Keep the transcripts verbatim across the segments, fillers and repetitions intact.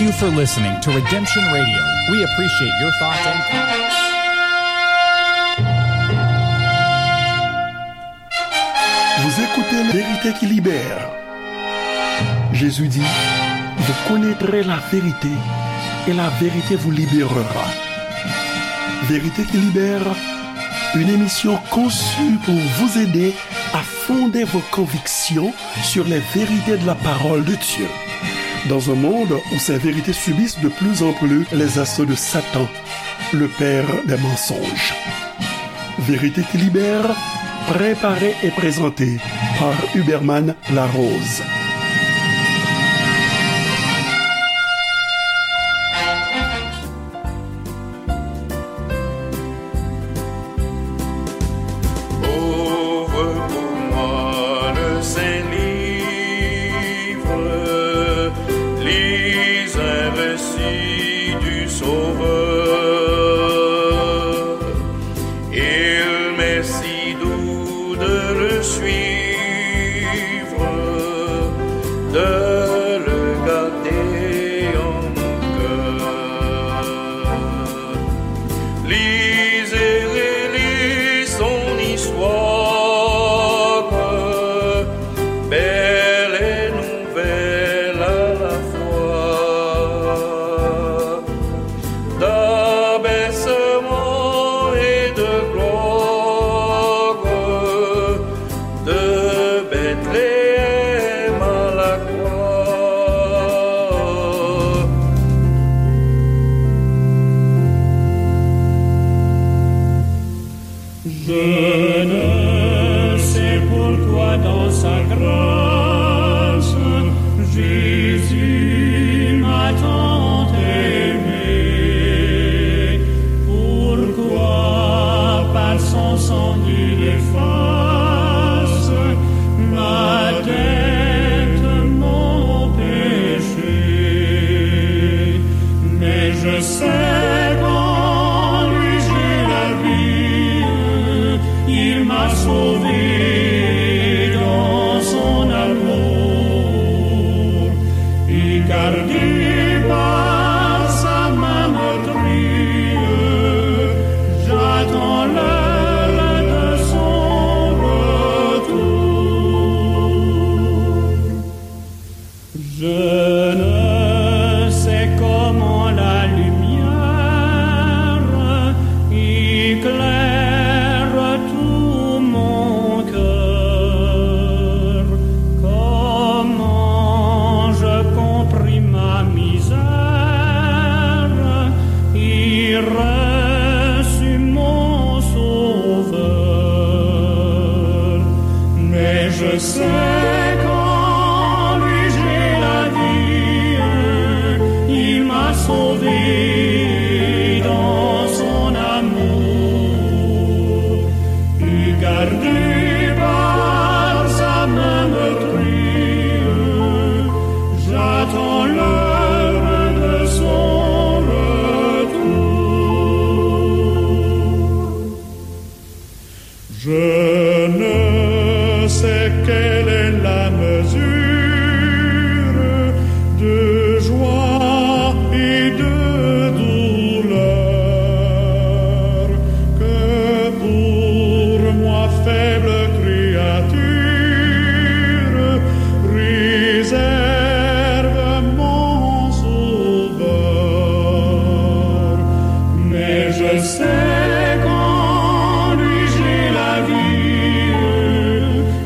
Thank you for listening to Redemption Radio. We appreciate your thoughts and comments. Vous écoutez La Vérité qui libère. Jésus dit, vous connaîtrez la vérité et la vérité vous libérera. Vérité qui libère, une émission conçue pour vous aider à fonder vos convictions sur les vérités de la parole de Dieu. Dans un monde où ces vérités subissent de plus en plus les assauts de Satan, le père des mensonges. Vérité qui libère, préparée et présentée par Huberman Larose. Ouvre pour moi le saint livre, lis un récit du Sauveur. Il m'est si doux de le suivre, de le garder en mon cœur. Lisez, relisez son histoire, belle et nouvelle à la fois, d'abaissement et de gloire, de Bethléem à la croix. Je ne sais pourquoi dans sa grâce, Jésus m'a tant aimé. Pourquoi par son sang il efface ma dette, mon péché. Mais je sais qu'en lui j'ai la vie, il m'a sauvé dans son amour. Et gardé par sa main meurtrie, j'attends l'heure de son retour. Je ne sais comment la lumière éclaire tout mon cœur, comment je compris ma misère et reçus mon Sauveur. Mais je sais qu'en lui j'ai la vie, il m'a sauvé dans son amour. Et gardé par sa main meurtrie, j'attends l'heure de son retour. Je ne sais quelle est la mesure de joie et de douleur que pour moi, faible créature, réserve mon Sauveur. Mais je sais qu'en lui j'ai la vie,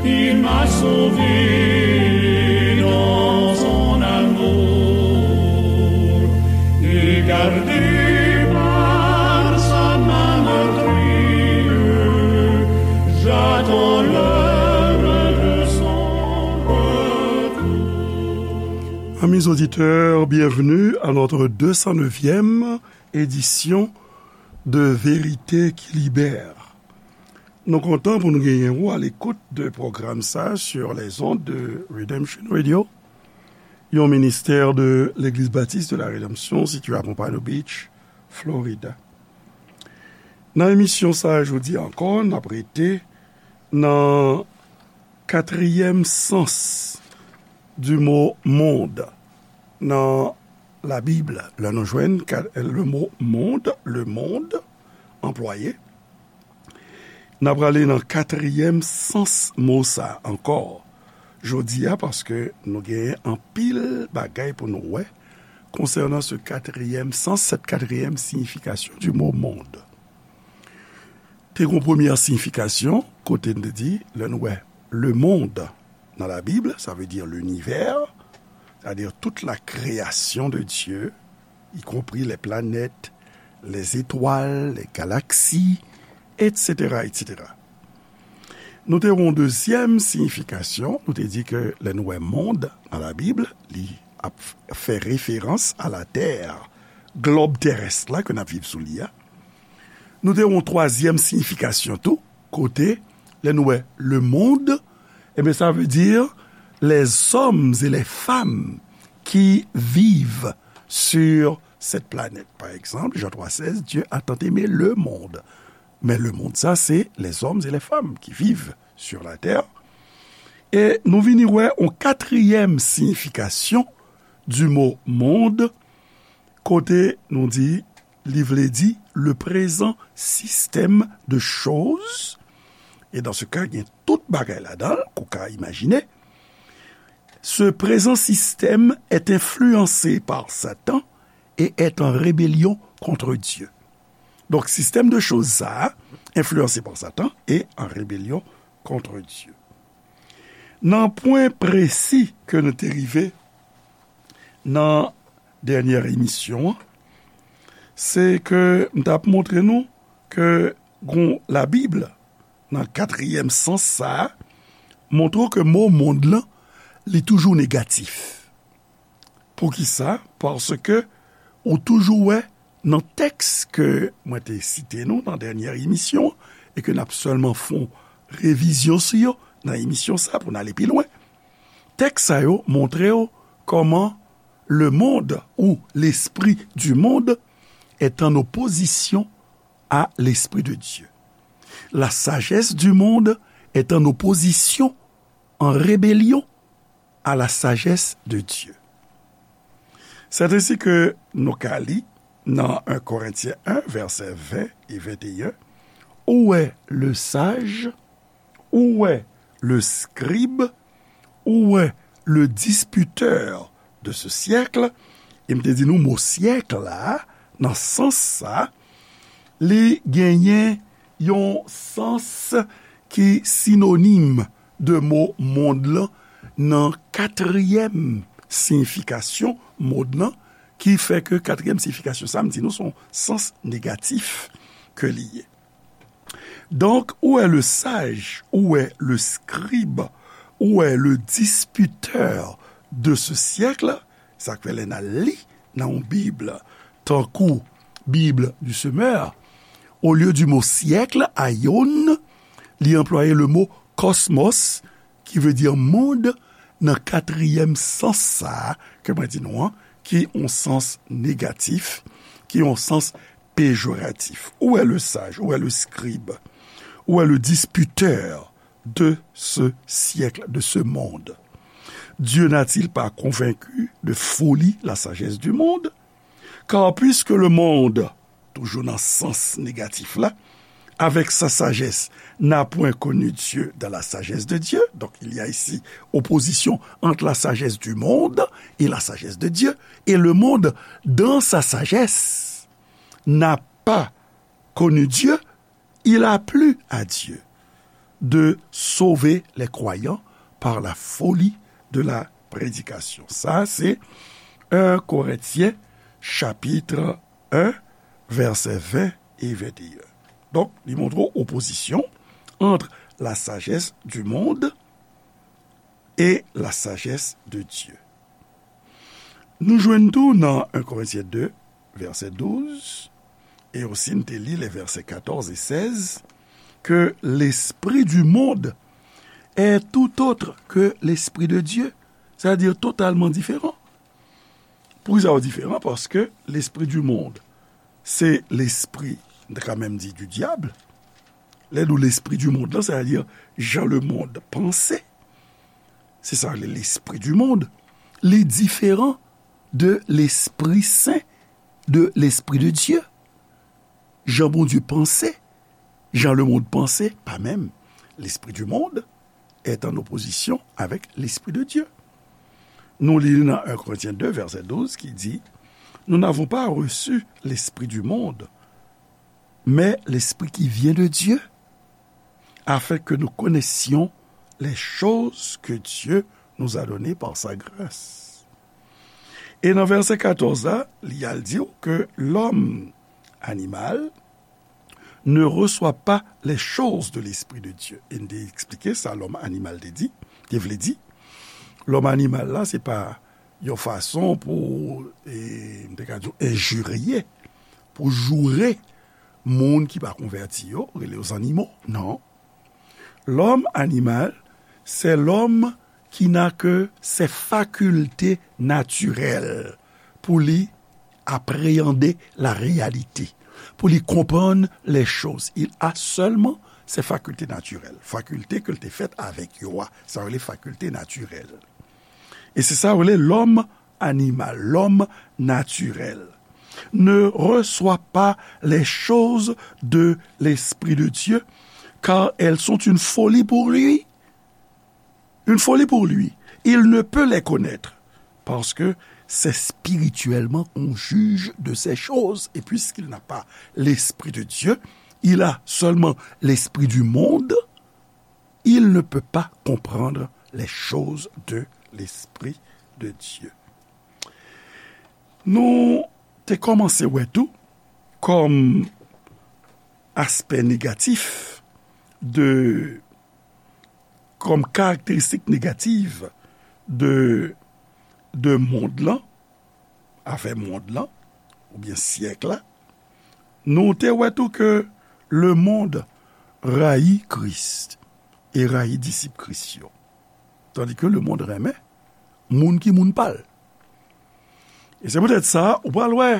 il m'a sauvé dans son amour. Et gardé par sa main meurtrie, j'attends l'heure de son retour. Amis auditeurs, bienvenue à notre deux cent neuvième édition de Vérité qui libère. Nou kontan pou nou genyen ou à l'écoute de pwogram sa sur les ondes de Redemption Radio, yon ministè de Legliz Batis de la Redanmsyon sitiye a Pompano Beach, Florida. Nan emisyon sa a jodi a ankò, n ap rete nan katriyèm sans du mo monde, nan Labib, lè nou jwenn ka- le mo mond, le mond, anplwaye, n ap prale nan katriyèm sans mo sa ankò jodi a, paske nou genyen anpil bagay pou nou wè konsènan se katriyèm sans, cette quatrième signification du mot monde. Te gon premyè siyifikasyon, kote n te di, lè nou wè le monde nan Labib, sa vle di linivè, sètadi tout la création de Dieu, y compris les planètes, les étoiles, les galaxies, et cetera, et cetera. Nou te wè yon dezyèm siyifikasyon, nou te di ke lè nou wè mond nan Labib, li ap fè referans a la tè, glòb terès la ke n ap viv sou li a. Nou te wè yon twazyèm siyifikasyon tou, kote, lè nou wè le monde, ebyen, sa vle di les hommes et les femmes qui vivent sur cette planète. Pa egzanp, Jan twa sèz, Dieu a tant aimé le monde. Men le monde, sa, se les hommes et les femmes qui vivent sur la terre. E nou vini wè yon katriyèm siyifikasyon du mot monde, kote nou di, li vle di le présent système de choses. Et dans ce cas, gen tout bagay ladan l, ke w ka imajine. Ce présent système est influencé par Satan et est en rébellion contre Dieu. Donk, sistèm de choz sa a, enfliyanse pa Satan e an rebelyon kont Dye. Nan pwen presi ke nou te rive nan dènyè emisyon an, se ke m t ap montre nou ke gon Labib nan katriyèm sans sa a, montre w ke mo mond lan, li toujou negatif. Poukisa? Paske ou toujou wè nan tèks ke mwen te site nou nan dènyè emisyon an, e ke n ap sèlman fè yon revizyon sou yo nan emisyon sa a pou n ale pi lwen. Tèks sa yo montre w kòman le monde ou l'esprit du monde est en opposition à l'esprit de Dieu. La sagesse du monde est en opposition, en rébellion à la sagesse de Dieu. C'est ainsi que nou ka li nan en Korentyen en, vèsè ven e venteyen, où est le sage, où est le scribe, où est le disputeur de ce siècle? E m te di nou mo syèk la, nan sans sa, li genyen yon sans ki sinonim de mo mond lan nan katriyèm siyifikasyon mond lan, ki fè ke katriyèm siyifikasyon sa, m di nou, se yon sans negatif ke li ye. Donc, où est le sage, où est le scribe, où est le disputeur de ce siècle? Sa k fè lè n al li nan yon Bib, tankou Bible du Semeur, au lieu du mot siècle, aion, li anplwaye le mot cosmos, ki vle di mond, nan katriyèm sans sa a ke mwen di nou an, ki yon sans negatif, ki yon sans péjoratif. Où est le sage? Où est le scribe? Où est le disputeur de ce siècle, de ce monde? Dieu n'a-t-il pas convaincu de folie la sagesse du monde? Car puisque le monde, toujou nan sans negatif la, avec sa sagesse, n'a point connu Dieu dans la sagesse de Dieu. Donc, il y a ici opposition entre la sagesse du monde et la sagesse de Dieu. Et le monde, dans sa sagesse, n'a pas connu Dieu, il a plu à Dieu de sauver les croyants par la folie de la prédication. Sa, se en Korentyen, chapit en, vèsè ven e venteyen. Donk, li montre w opozisyon ant la sagesse du monde et la sagesse de Dieu. Nou jwenn tou nan en Korentyen de, vèsè douz, e osi n te li les versets quatorze et seize, que l'esprit du monde est tout autre que l'esprit de Dieu, c'est-à-dire totalement différent. Poukisa yo diferan? Paske l'esprit du monde, se lespri, n ta ka menm di du diable. Lè nou l'esprit du monde lan, c'est-à-dire jan le monde panse, se sa le l'esprit du monde, li diferan de Lespri Sen, de Lespri de Dye. Jan Bondye panse, jan lemonn panse, pa menm. Lespri di monn est en opposition avec l'Esprit de Dieu. Nou li nan un Corinthiens deux, verset douze, ki di, Nous n'avons pas reçu l'Esprit du monde, mais l'Esprit qui vient de Dieu, afin que nous connaissions les choses que Dieu nous a données par sa grâce. E nan vèsè katòz la, li al di w ke lòm animal ne reçoit pas les choses de l'Esprit de Dieu. E n te eksplike sa lòm animal te di, te vle di. Lòm animal la, se pa yon fason pou, e, m te ka di w, enjirye, pou joure moun ki pa konvèti yo, rele yo zannimo. Non. L'homme animal, c'est l'homme qui n'a que ses facultés naturelles pou li apréhender la réalité, pou li konprann les choses. Il a seulement ses facultés naturelles, fakilte ke l te fèt avèk yo a, sa yo rele fakilte natirèl. E se sa yo rele l'homme animal, l'homme naturel, ne reçoit pas les choses de l'Esprit de Dieu, car elles sont une folie pour lui. Une folie pour lui. Il ne peut les connaître, parce que c'est spirituellement qu'on juge de ces choses. Et puisqu'il n'a pas l'Esprit de Dieu, il a seulement l'esprit du monde, il ne peut pas comprendre les choses de l'Esprit de Dieu. Nou te kòmanse wè tou, kòm aspè negatif de, kòm karakteristik negatif de, de mond lan, afè mond lan, oubyen syèk la, nou te wè tou ke lemonn rayi Kris e rayi disip Kris yo. Tandi ke lemonn renmen moun ki moun pa l. E se poutèt sa, ou pral wè,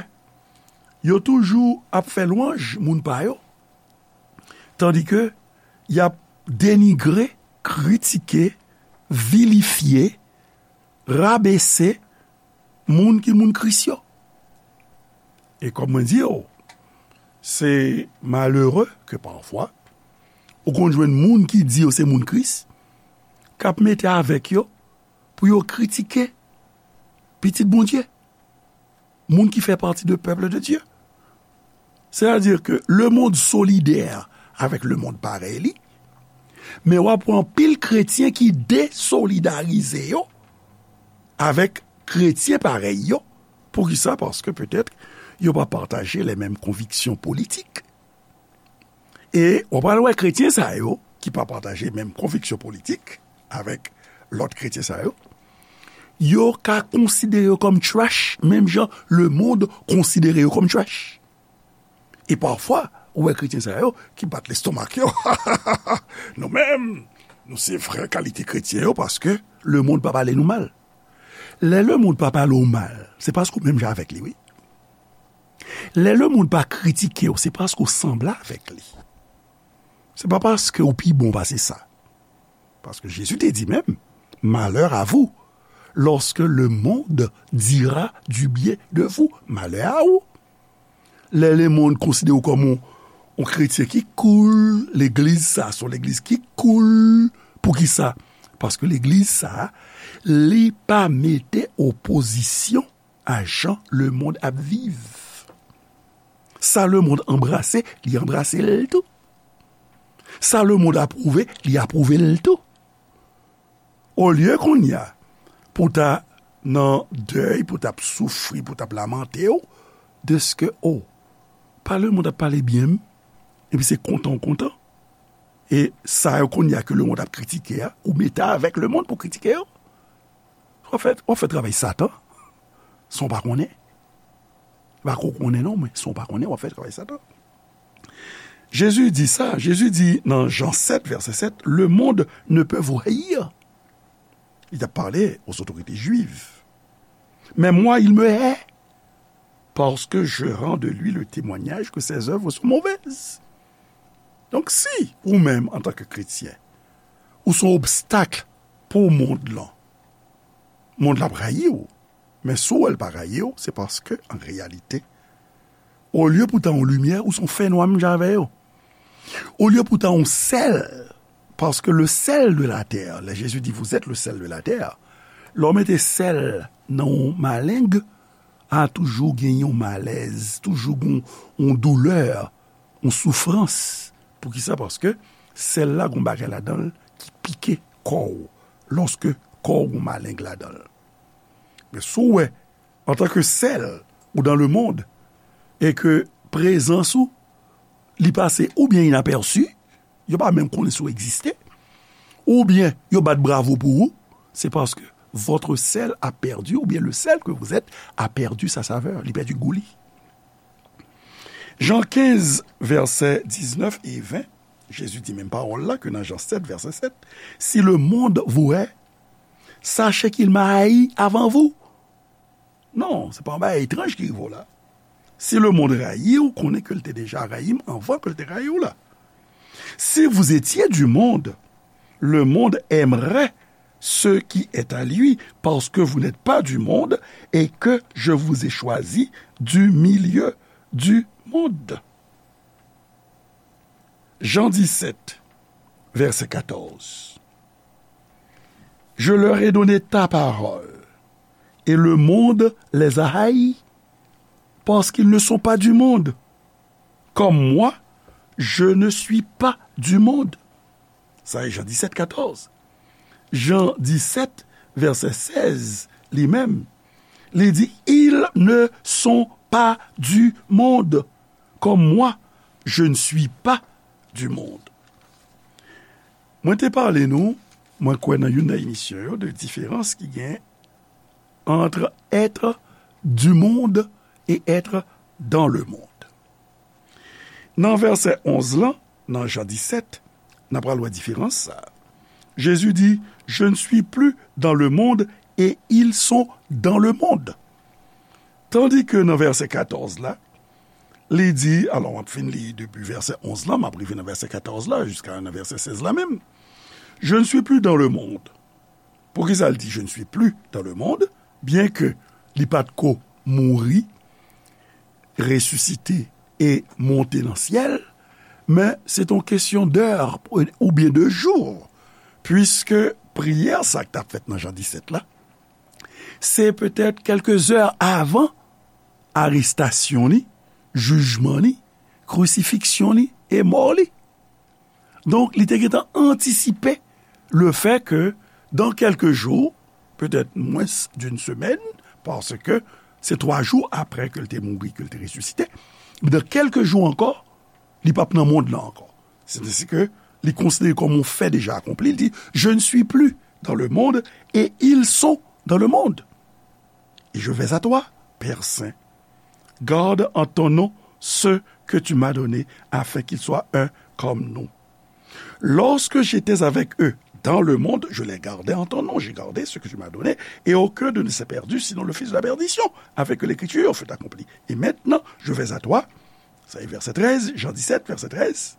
yo toujou ap fè lwanj moun pa yo, tandi ke y ap denigre, kritike, vilifye, rabese moun ki moun Kris yo. E kòm mwen di yo, se malere ke pafwa, ou konn jwenn moun ki di yo se moun Kris, k ap mete avèk yo pou yo kritike pitit Bondye, moun ki fè pati de pèp de Dye. Sètadi ke lemonn solidè avèk lemonn parèy li, men w ap wè anpil kretyen ki desolidarize yo avèk kretyen parèy yo. Poukisa? Paske petèt yo pa pataje lè menm konviksyon politik. E w pral wè kretyen sa yo, ki pa pataje menm konviksyon politik avèk lòt kretyen sa yo, yo ka konsidere yo kòm trash, menm jan lemonn konsidere yo kòm trash. E pafwa, ou wè kretyen sa yo ki bat lestomak yo. Nou menm, nou se vrè kalite kretyen yo paske lemonn pa pale nou mal. Lè lemonn pa pale w mal, se paske w menm jan avèk li, wi. Lè lemonn pa kritike w, se paske w sanble avèk li. Se pa paske w pi bon pase sa. Paske Jezi te di menm, malheur à vous, lorsque le monde dira du bien de vous. Malè a ou. Lè lemonn konsidere w kòm yon, yon kretyen ki cool, legliz sa se yon legliz ki cool. Poukisa? Paske legliz sa, li pa mete opozisyon a jan lemonn ap viv. Sa lemonn anbrase, li anbrase l tou. Sa lemonn apwouve, li apwouve l tou. Olye kounye a, pou w ta nan dèy, pou w t ap soufri, pou w t ap lamante w, dèske, o, pa lemonn ap pale byen m, epi se kontan w kontan. E sa yo kounye a ke lemonn ap kritike a, ou mete avèk lemonn pou kritike yo. W ap fè, w ap fè travay Satan, san w pa konnen. Pa ko konnen non, men san w pa konnen, w ap fè travay Satan. Jezi di sa, Jezi di nan Jan sèt, vèsè sèt, le monde ne peut vous haïr. Li t ap pale aux autorités juives. Mais moi, il me hait, parce que je rends de lui le témoignage que ses œuvres sont mauvaises. Donk, si ou menm, antanke kretyen, ou se yon obstak pou mond lan, mond lan ap rayi w. Men si w wè l pa rayi w, se paske, an reyalite, olye pou ta yon limyè, ou se yon fènwa menm jan avè yo. Olye pou ta yon sèl, paske le sel de la terre, lè Jezi di, vous êtes le sel de la terre, lè w mete sèl nan yon maleng, a toujou gen yon malèz, toujou gen yon doulè, yon soufrans. Poukisa? Paske sèl la gen yon bagay ladan l ki pike kò w, lòske kò w gen yon maleng ladan l. Men si w wè, antanke sèl, ou dans le monde, e ke prezans ou, li pase oubyen inapèsi, yo pa menm konnen si w egziste, oubyen yo bat bravo pou ou, se paske votre sel a perdu, oubyen le sel que vous êtes a perdu sa saveur, li pèdi gou li. Jan kenz, vèsè diznèf e ven, Jezi di menm pawòl la ke nan Jan sèt, vèsè sèt, si le monde vous hait, sachez qu'il m'a haï avant vous. Non, se pa yon bagay etranj ki rive w la. Si le monde rayi w, konnen ke l te deja rayi m anvan ke l te rayi w la. Si vous étiez du monde, le monde aimerait ce qui est à lui, parce que vous n'êtes pas du monde et que je vous ai choisi du milieu du monde. Jan disèt, vèsè katòz. Je leur ai donné ta parole, et le monde les a haïs, parce qu'ils ne sont pas du monde, comme moi, je ne suis pas du monde. Sa e Jan disèt, katòz. Jan disèt, vèsè sèz, li menm, li di, ils ne sont pas du monde, comme moi, je ne suis pas du monde. Mwen te pale nou, mwen kwè nan youn nan emisyon yo, de diferans ki gen entre être du monde et être dans le monde. Nan vèsè onz lan, nan Jan disèt, n ap pral wè diferans sa a. Jezi di, je ne suis plus dans le monde et ils sont dans le monde. Tandis que nan vèsè katòz la, li di, alò, m ap fin li depi vèsè onz la, m ap rive nan vèsè katòz la, jiska nan vèsè sèz la menm. Je ne suis plus dans le monde. Poukisa l di, je ne suis plus dans le monde, byenke li pa t ko mouri, resisite e monte nan syèl, men se t on kesyon d'heure oubyen de jou, puiske priyè sa k t ap fèt nan Jan disèt la, se petèt kèlke zè avan arestasyon li, jijman li, krisifiksyon li e mò li. Donk, li te gentan antisipe le fait que dans quelques jours, peut-être moins d'une semaine, paske se twa jou apre ke l te mouri, ke l te resisite, dans quelques jours encore, li p ap nan mond lan ankò. Se te si ke li konsidere kòm yon fè deja akonpli, li di, je ne suis plus dans le monde et ils sont dans le monde. Et je vais à toi, Père Saint. Garde en ton nom ceux que tu m'as donnés, afin qu'ils soient un comme nous. Lorsque j'étais avec eux dans le monde, je les gardais en ton nom. J'ai gardé ce que tu m'as donné, et aucun d'eux ne s'est perdu, sinon le fils de la perdition, afin que l'écriture fût accomplie. Et maintenant, je vais à toi. Ça est, verset treize, Jean dix-sept, verset treize.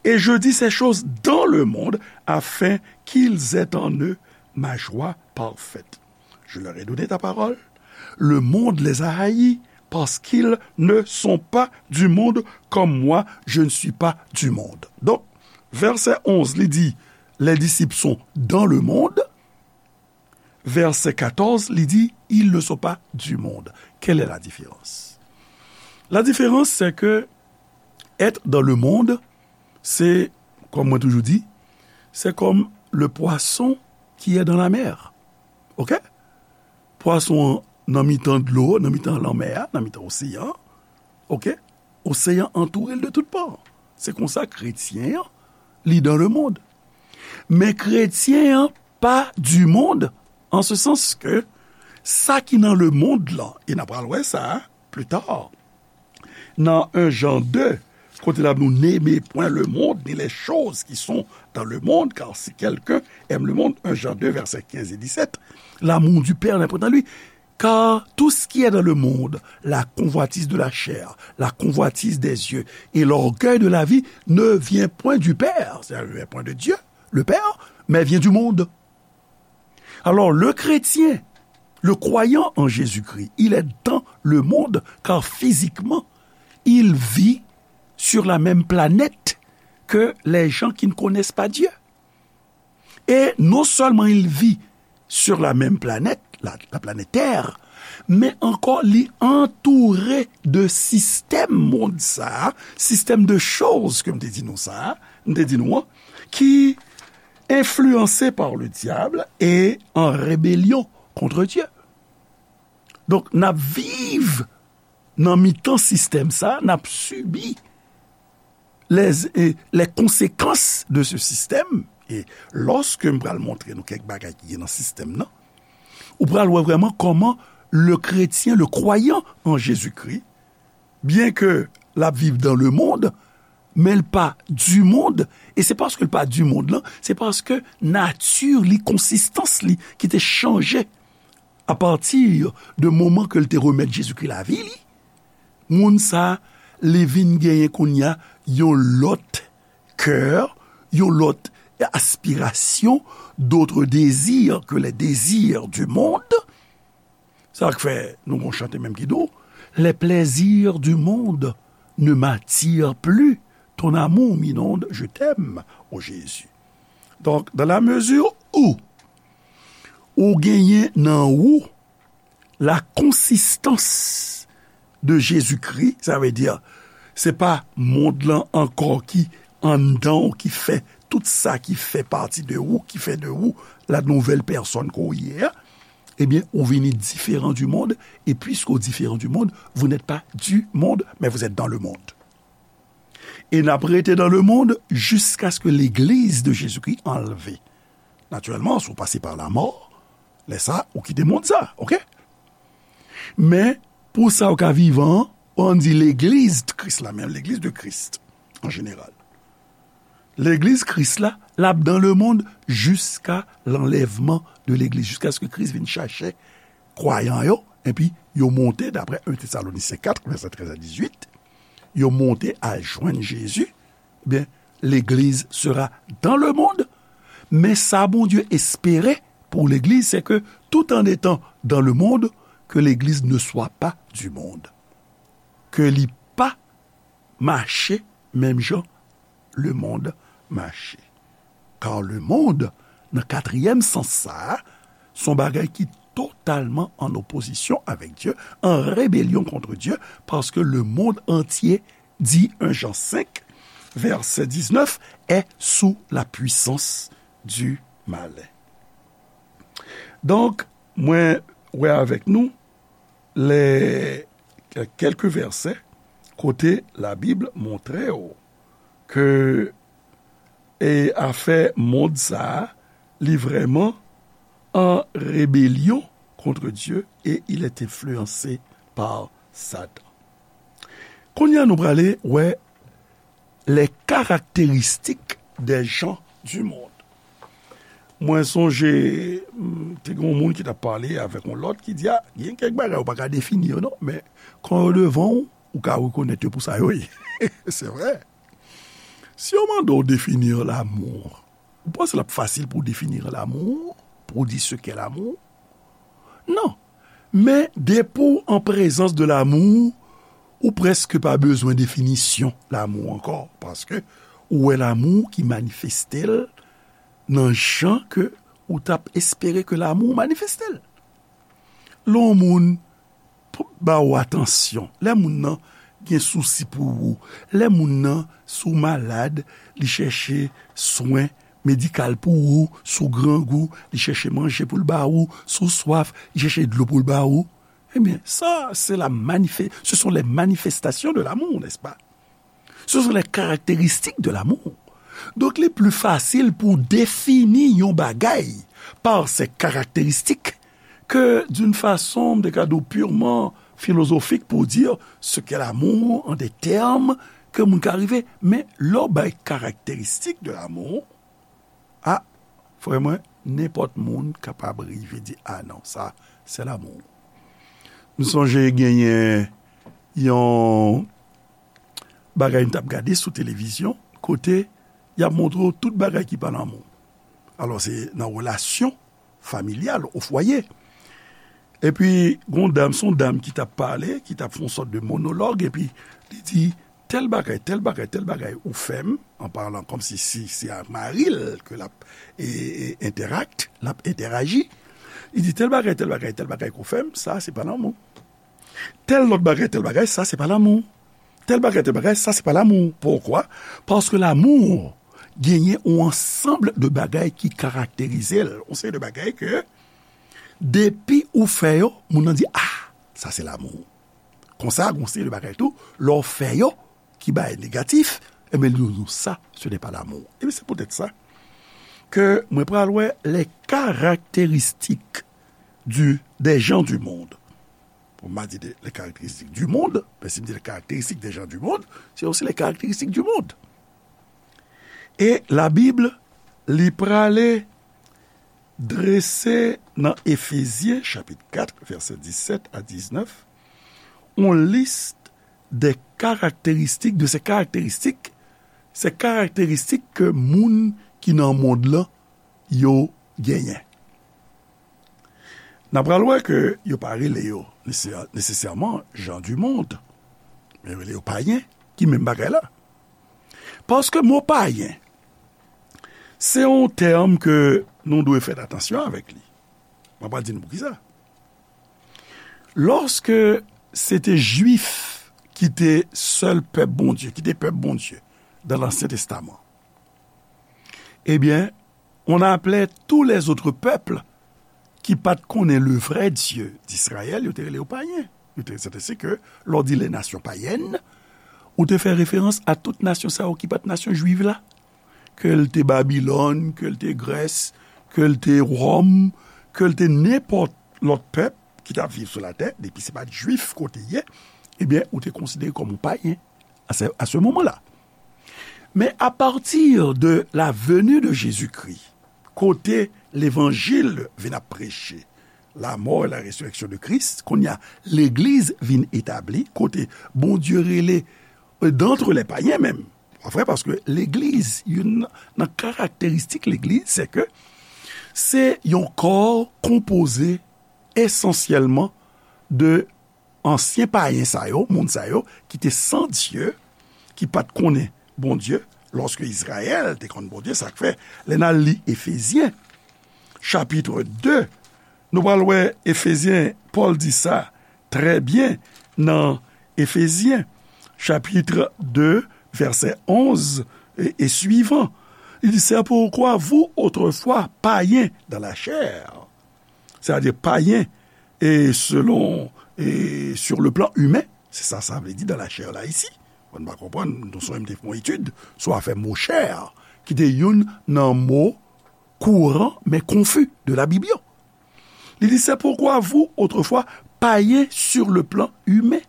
Et je dis ces choses dans le monde, afin qu'ils aient en eux ma joie parfaite. Je leur ai donné ta parole. Le monde les a haïs parce qu'ils ne sont pas du monde comme moi, je ne suis pas du monde. Donc, verset onze, li di, les disciples sont dans le monde. Verset quatorze, li di, ils ne sont pas du monde. Quelle est la différence? La différence, c'est que être dans le monde, c'est, comme moi toujours dit, c'est comme le poisson qui est dans la mer. OK? Pwason an nan mitan dlo, nan mitan lanmè a, nan mitan oseyan an. OK? Oseyan antoure l de tout pa. Se konsa kretyen an, li dans le monde. Men kretyen an pa du monde, en ce sens que sa ki nan le monde lan, e n a pral wè sa plus tard, nan un Jean deux, kote l ap di nou, n'aimez point le monde, ni les choses qui sont dans le monde, car si quelqu'un aime le monde, un Jean deux, versets quinze et dix-sept, l'amour du Père n'est point en lui. Car tout ce qui est dans le monde, la convoitise de la chair, la convoitise des yeux et l'orgueil de la vie, ne vient point du Père, c'est-à-dire ne vient point de Dieu, le Père, mais vient du monde. Alors, le chrétien, Le croyant en Jésus-Christ, il est dans le monde, car physiquement, il vit sur la même planète que les gens qui ne connaissent pas Dieu. Et non seulement il vit sur la même planète, la, la planète Terre, men ankò li antoure de sistèm mond sa, sistèm de choz ke m te di nou sa, m te di nou an, ki enfliyanse par le diable et en rébellion contre Dieu. Donk, n ap viv nan mitan sistèm sa, n ap sibi les, eh, les conséquences de ce système. E lòske m pral montre nou kèk bagay ki gen nan sistèm nan, ou pral wè vrèman kòman le chrétien, le croyant en Jésus-Christ, byen ke l ap viv dans le monde, men l pa du monde. E se paske l pa du monde lan, se paske nati li, konsistans li ki te chanje apati de moman ke l te remèt Jezikri lavi li, moun sa, li vin genyen kounye a yon lòt kè, yon lòt aspirasyon, d'autres désirs que les désirs du monde. Sa k fè nou gon chante menm ki di w, les plaisirs du monde ne m'attirent plus, ton amour m'inonde, je t'aime, ô Jésus. Donk, dans la mesure où ou genyen nan ou la consistance de Jésus-Christ, sa vle di, se pa mond lan ankò ki anndan w, ki fè tout sa ki fè pati de ou, ki fè de ou la nouvelle personne ke w ye a, ebyen, ou vini diferan du monde, et puisque ou différent du monde, vous n'êtes pas du monde, mais vous êtes dans le monde. E n ap rete dans le monde jusqu'à ce que l'église de Jésus-Christ enlevée. Natirèlman, si w pase pa lamò, lè sa, ou kite mond sa, oke? Men, pou sa w ka vivan an, ann di legliz Kris la, men legliz de Christ, an jeneral. Legliz Kris la, l ap dans le monde jusqu'à l'enlèvement de l'église, jusqu'à ce que Kris vin chache kwayan yo, epi yo monte, daprè un Thessaloniciens quatre, verset treize à dix-huit, yo monte al jwenn Jezi, ebyen, legliz sera dans le monde. Men sa Bondye espere pou legliz, se ke tout en étant dans le monde, que l'église ne soit pas du monde. Ke li pa mache menm jan lemonn mache. Kar lemonn, nan katriyèm sans sa a, se yon bagay ki totalman an opozisyon avèk Dye, en rébellion contre Dieu, parce que le monde entier, dit un Jean cinq, verset dix-neuf, est sous la puissance du malin. Donk, mwen wè avèk nou lè kèk vèsè kote Labib montre w ke e afè mond sa a, li vrèman an rebelyon kont Dye e il est influencé par Satan. Kounye a nou prale wè les caractéristiques des gens du monde. Mwen sonje, m, te gen yon moun ki t ap pale avèk yon lòt ki di, a, gen kèk bagay ou pa ka defini yo non, men kan yo devan w, ou ka rekonèt yo pou sa yo ye. Se vre. Si yo mande w defini lanmou, ou panse l ap fasil pou w defini lanmou, pou w di ce qu'est l'amour? Non. Men depi w an prezans de lanmou, ou prèske pa bezwen definisyon lanmou ankò, paske ou wè lanmou ki manifeste l nan jan ke ou t ap espere ke lanmou manifeste l. Lè yon moun p-, ba ou atansyon, lè moun nan gen sousi pou ou, lè moun nan, si w malad, li chèche swen medikal pou ou, si w grangou, li chèche manje pou l ba ou, si w swaf, li chèche dlo pou l ba ou. Ebyen, sa, se la manifè-, ce sont les manifestations de l'amour, n'est-ce pas? Ce sont les caractéristiques de l'amour. Donk, li pli fasil pou defini yon bagay par ses caractéristiques que d'une façon, m te ka di w, purement philosophique pour dire ce qu'est l'amour en des termes ke moun ka rive. Men lè w bay caractéristiques de l'amour, a, frè mwen, nenpòt moun kapab rive di, a non, sa, se lanmou. M sonje genyen yon bagay m t ap gade sou televizyon, kote y ap montre w tout bagay ki pa lanmou. Alò, se nan relasyon familyal, o fwaye. Epi, gon dam, se yon dam ki t ap pale, ki t ap fè yon sòt de monològ, epi li di, tèl bagay, tèl bagay, tèl bagay ou fè m, an palan kòmsi si se a mari l ke l ap e, e, entèrakte, l ap entèraji. Li di, tèl bagay, tèl bagay, tèl bagay ke w fè m, sa se pa lanmou. Tèl lòt bagay, tèl bagay, sa se pa lanmou. Tèl bagay, tèl bagay, sa se pa lanmou. Poukwa? Paske lanmou genyen yon ansanm de bagay ki karakterize l. Yon seri de bagay ke depi ou fè yo, moun nan di, ah, sa se lanmou. Konsa, gon seri de bagay tou, lè w fè yo, ki bay negatif, ebyen, li di, non, sa, ce n'est pas l'amour. Ebyen, se poutèt sa ke mwen pral wè les caractéristiques du, des gens du monde. Bon, m a di de, les caractéristiques du monde, men si m di les caractéristiques des gens du monde, c'est aussi les caractéristiques du monde. E Labib, li prale drese nan Efezyen, chapit kat, vèsè disèt a diznèf, yon lis de karakteristik, de se karakteristik, se karakteristik ke moun ki nan mond lan, yo genyen. N a pral wè ke yo pa rele yo nesesè-, nesesèman gens du monde, men yo rele yo payen, ki menm bagay la. Paske mo payen, se yon tèm ke nou dwe fè atansyon avèk li. Mwen pral di nou poukisa. Lòske se te Jwif ki te sèl pèp Bondye, ki te pèp Bondye dans l'Ancien Testament, ebyen, on appelait tous les autres peuples ki pa t konnen le vrai Dieu d'Israël, yo te rele yo payen. Yo te, se te, se ke, lè w di les nations païennes, ou te fè referans a tout nasyon sa yo ki pa t nasyon jwiv la. Ke l te Babilòn, ke l te Grès, ke l te Wòm, ke l te nenpòt lòt pèp ki t ap viv sou latè, depi se pa t jwif kote ye, ebyen, ou te konsidere kòm yon payen à ce, à ce moment-là. Mais à partir de la venue de Jésus-Christ, kote levanjil vin ap preche, la mort et la résurrection de Christ, kounye a, legliz vin etabli, kote Bondye rele, euh, d'entre les païens menm. Pa vre, paske legliz, youn nan karakteristik legliz, se ke se yon kò konpoze esansyèlman de ansyen payen sa yo, moun sa yo, ki te san Dye, ki pa t konnen Bondye, lòske Izrayèl te konn Bondye, sa k fè, lè n al li Efezyen, chapit de, nou pral wè Efezyen, Pòl di sa trè byen nan Efezyen, chapit de, vèsè onz e, e suivant. Li di, c'est pourquoi vous, autrefois, païens dans la chair, c'est-à-dire païens e selon, e sur le plan humain, se sa sa vle di dans la chair la isi. Bon, nou pa konprann, nou sonje m te fè yon etid sou afè mo chè, ki te youn nan mo kouran, men konfi de Labib yo. Li di, c'est pourquoi vous, autrefois, païens sur le plan humain,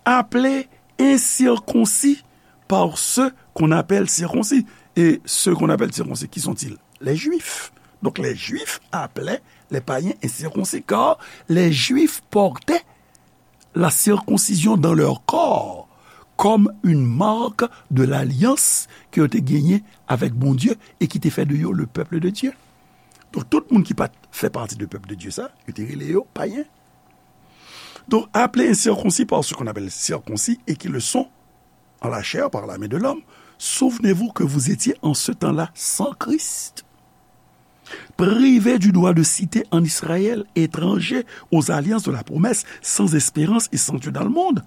appelés incirconcis par ceux qu'on appelle circoncis. Et ceux qu'on appelle circoncis, qui sont-ils? Les Juifs. Donc les Juifs appelaient les païens incirconcis, car les Juifs portaient la circoncision dans leur corps comme une marque de l'alliance ke yo te genyen avèk Bondye e ki te fè de yo le peuple de Dieu. Donk, tout moun ki pa t fè pati de pèp de Dye sa, yo te rele yo payen. Donc, appelés incirconcis par ceux qu'on appelle circoncis et qui le sont en la chair par la main de l'homme, souvenez-vous que vous étiez en ce temps-là sans Christ, privés du droit de cité en Israël, étrangers aux alliances de la promesse, sans espérance et sans Dieu dans le monde.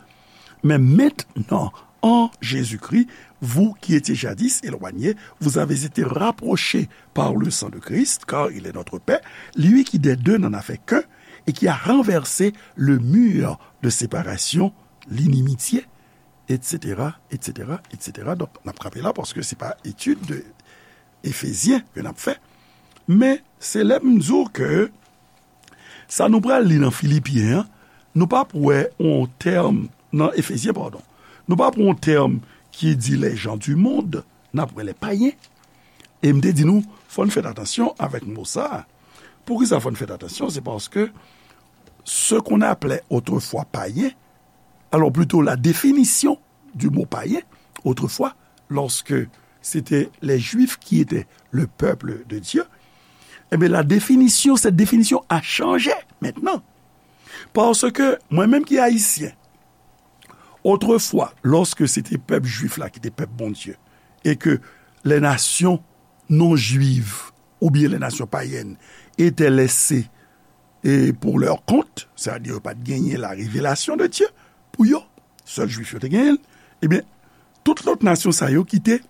Mais maintenant, en Jésus-Christ, vous qui étiez jadis éloignés, vous avez été rapprochés par le sang de Christ, car il est notre paix, lui qui des deux n'en a fait qu'un, et qui a renversé le mur de séparation, l'inimitié, et cetera, et cetera, et cetera. Donk, n ap kanpe la paske se pa etid de Efezyen ke n ap fè. Men, se lè m di w ke sa nou pral li nan Filipyen an, nou p ap wè yon tèm, nan Efezyen, padon, nou p ap wè yon tèm ki di les gens du monde, n ap wè les païens. E m te di nou, fò n fè atansyon avèk mo sa a. Poukisa fò n fè atansyon? Se paske ce qu'on appelait autrefois païen, alors plutôt la définition du mot païen, autrefois, lorsque c'était les Juifs qui étaient le peuple de Dieu, Ebyen, la définition, cette définition a changé maintenant. Paske mwen menm ki ayisyen, otrefwa, lòske se te pèp jwif la ki te pèp Bondye, e ke les nations non juives oubyen les nations païennes étaient laissées, e, pour leur compte, sètadi yo pa t genyen la révélation de Dieu pou yo, sèl jwif yo te genyen l, ebyen, tout lòt nasyon sa yo ki te,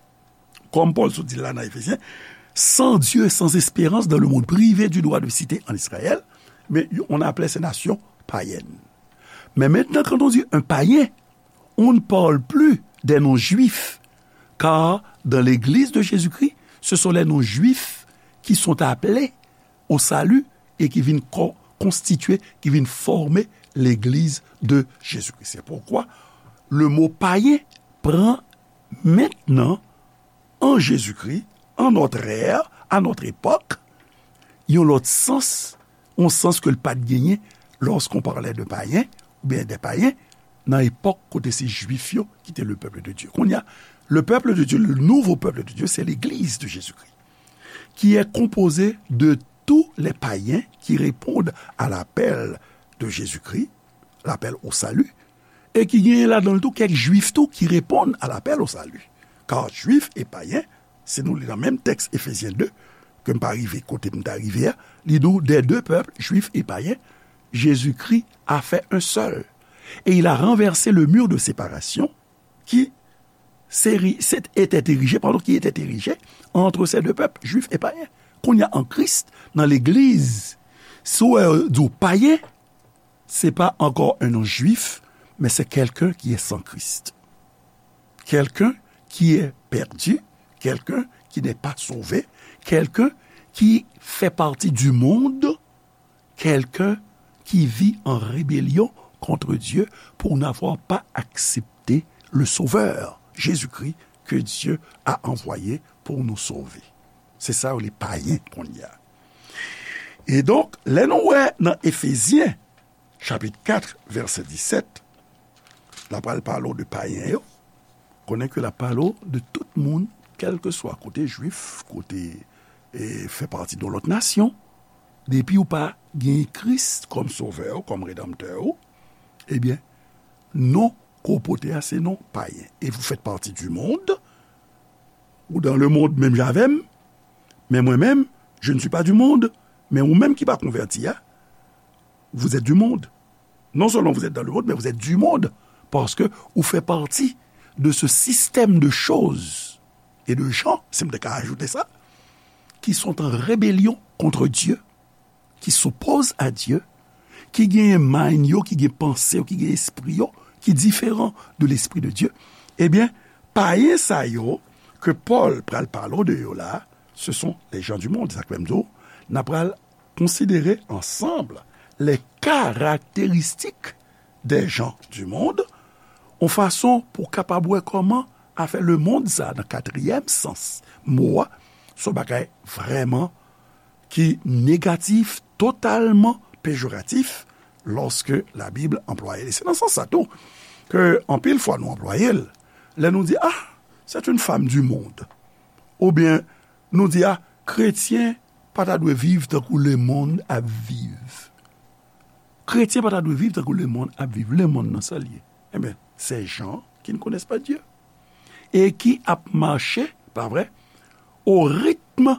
kòm Pòl sot di la nan Efezyen, sans Dieu et sans espérance dans le monde, privés du droit de cité en Israël, mais on appelait ces nations païennes. Mais maintenant, quand on dit un païen, on ne parle plus des non-juifs, car dans l'Église de Jésus-Christ, ce sont les non-juifs qui sont appelés au salut et qui viennent co- constituer, qui viennent former l'Église de Jésus-Christ. C'est pourquoi le mot païen prend maintenant, en Jésus-Christ, en notre ère, à notre époque, yon lòt sans, yon sans ke l pa t genyen lorsqu'on parlait de païens, oubyen des païens, nan epòk kote se jwif yo ki te le peuple de Dieu. Kounye a, le peuple de Dieu, le nouveau peuple de Dieu, c'est l'Église de Jésus-Christ, qui est composée de tous les païens qui répondent à l'appel de Jésus-Christ, l'appel au salut, e ki genyen ladan l tou kèk jwif tou ki reponn à l'appel au salut. Car juifs et païens, si nou li nan menm tèks Efezyen de, ke m pa rive kote m ta rive a, li di w, des deux peuples, juifs et païens, Jésus-Christ a fait un seul. Et il a renversé le mur de séparation qui s'éri- s'est- était érigé, pardon, qui était érigé entre ces deux peuples, juifs et païens. Kounye a an Kris, nan legliz, si w wè yo di w payen, c'est pas encore un non-juif, mais c'est quelqu'un qui est sans Christ. Quelqu'un qui est perdu, quelqu'un qui n'est pas sauvé, quelqu'un qui fait partie du monde, quelqu'un qui vit en rébellion contre Dieu pour n'avoir pas accepté le Sauveur, Jésus-Christ, que Dieu a envoyé pour nous sauver. Se sa yo rele payen kounye a. E donk, lè nou wè nan Efezyen, chapit kat, vèsè disèt, l ap pral pale w de payen yo, konnen ke l ap pale w de tout moun, kèlkeswa kote jwif, kote, e, fè pati de yon lòt nasyon, depi w pa gen Kris kòm sovè w, kòm redanmtè w, ebyen, non ke w pote a, se non payen. Et vous faites partie du monde, ou dans le monde menm jan avè m, men mwen menm, je ne suis pas du monde, men ou menm ki pa konvèti a, vous êtes du monde. Non seulement vous êtes dans le monde, mais vous êtes du monde, paske ou fè pati de ce système de choses et de gens, si m te ka ajoute sa, qui sont en rébellion contre Dieu, qui s'opposent à Dieu, ki genyen mind yo, ki gen panse yo, ki gen espri yo, ki diferan de l'esprit de Dieu, ebyen, payen sa yo ke Pòl pral pale w de yo la, ce sont les gens du monde. Sa k fè m di w, n a pral konsidere ansanm les caractéristiques des gens du monde, yon fason pou w kapab wè kòman afè lemonn sa, nan katriyèm sans mo a, se yon bagay vrèman ki negatif, totalman pejoratif, lòske Labib anplwaye l. E se nan sans sa tou ke anpil fwa nou anplwaye l. Lè nou di, ah, c'est une femme du monde. Oubyen nou di, ah, kretyen pa ta dwe viv tankou lemonn ap viv. Kretyen pa ta dwe viv tankou lemonn ap viv. Lemonn nan sa l ye. Ebyen, ces gens qui ne connaissent pas Dieu. Et qui ap mache, pa vre, au rythme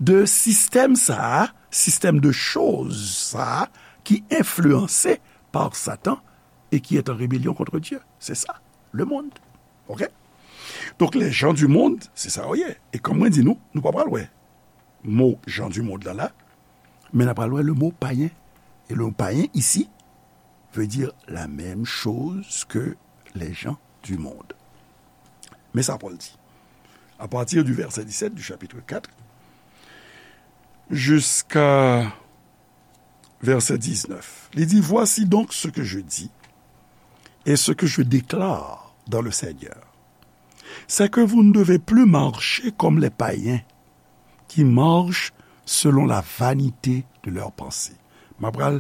de système sa a, système de choses sa a, ki enfliyanse par Satan et qui est en rébellion contre Dieu. C'est ça, le monde. Ok? Donk, les gens du monde, se sa yo ye. E kòm mwen di nou, nou pa pral wè mo gens du monde la la, men n a pral wè le mot païen. Et le mot païen ici veut dire la même chose que les gens du monde. Men sa Pòl di. À partir du verset dix-sept du chapitre quatre jusqu'à verset dix-neuf, li di, voici donc ce que je dis et ce que je déclare dans le Seigneur, c'est que vous ne devez plus marcher comme les païens qui marchent selon la vanité de leurs pensées. M ap pral,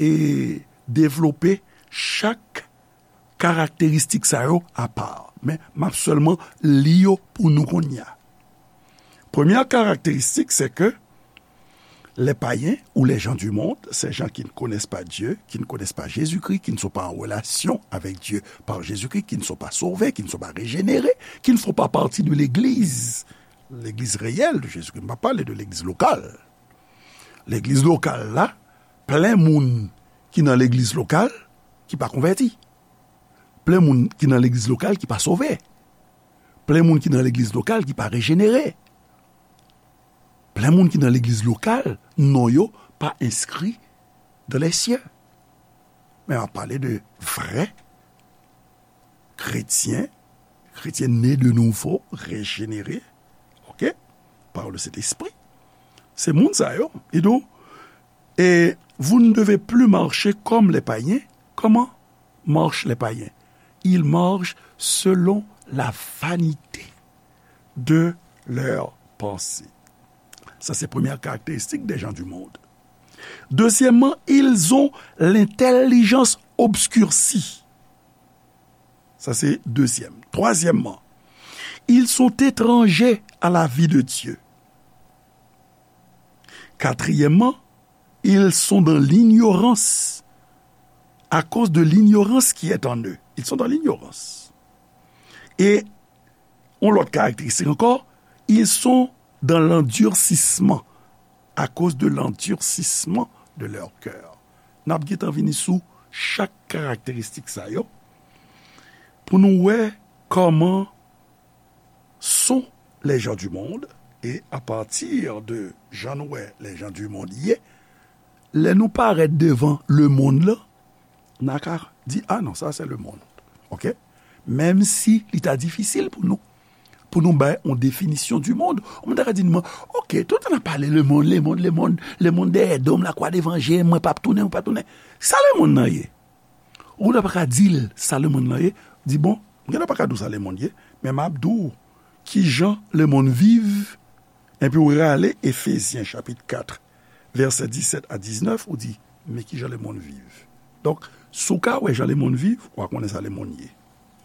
e, devlope chak karakteristik sa yo apa. Men, m ap sèlman li yo pou nou kounye a. Premyè karakteristik, se ke Les païens ou les gens du monde, ces gens qui ne connaissent pas Dieu, qui ne connaissent pas Jésus-Christ, qui ne sont pas en relation avec Dieu par Jésus-Christ, qui ne sont pas sauvés, qui ne sont pas régénérés, qui ne font pas partie de l'Église, l'Église réelle de Jésus-Christ. M pa pale de legliz lokal. Legliz lokal la, plen moun ki nan legliz lokal ki pa konvèti. Plen moun ki nan legliz lokal ki pa sove. Plen moun ki nan legliz lokal ki pa rejenere. Plen moun ki nan legliz lokal, non yo pa enskri dans les cieux. Men m ap pale de vrè kretyen, kretyen ne de nouvo, rejenere, ok, par le Saint-Esprit. Se moun sa yo, li di w, et vous ne devez plus marcher comme les païens. Comment marchent les païens? Ils marchent selon la vanité de leurs pensées. Ça, c'est première caractéristique des gens du monde. Deuxièmement, ils ont l'intelligence obscurcie. Ça, c'est deuxième. Troisièmement, ils sont étrangers à la vie de Dieu. Quatrièmement, ils sont dans l'ignorance à cause de l'ignorance qui est en eux. Ils sont dans l'ignorance. Et yon lòt karakteristik ankò, ils sont dans l'endurcissement à cause de l'endurcissement de leur cœur. N ap gentan vini sou chak karakteristik sa yo pou nou wè kòman sont les gens du monde, et à partir de jan nou wè les gens du monde ye, lè nou parèt devan lemonn lan, n a ka di, ah non, sa se lemonn. Ok? Menm si li ta difisil pou nou, pou nou bay yon definisyon du monde. Yon moun ta ka di nou, ok, tout tan n ap pale lemonn, lemonn, lemonn, lemonn dèyè do m, lakwa devan je m, mwen p ap tounen, mwen p ap tounen. Sa lemonn nan ye? Ou gentan pa ka di l sa lemonn lan ye, di, bon, m gentan pa ka di w sa lemonn ye, men m ap di w kijan lemonn viv, epi w rale Efezyen chapit kat, vèsè disèt a diznèf, ou di, men kijan lemonn viv. Donk, si w ka wè jan lemonn viv, w a konnen sa lemonn ye.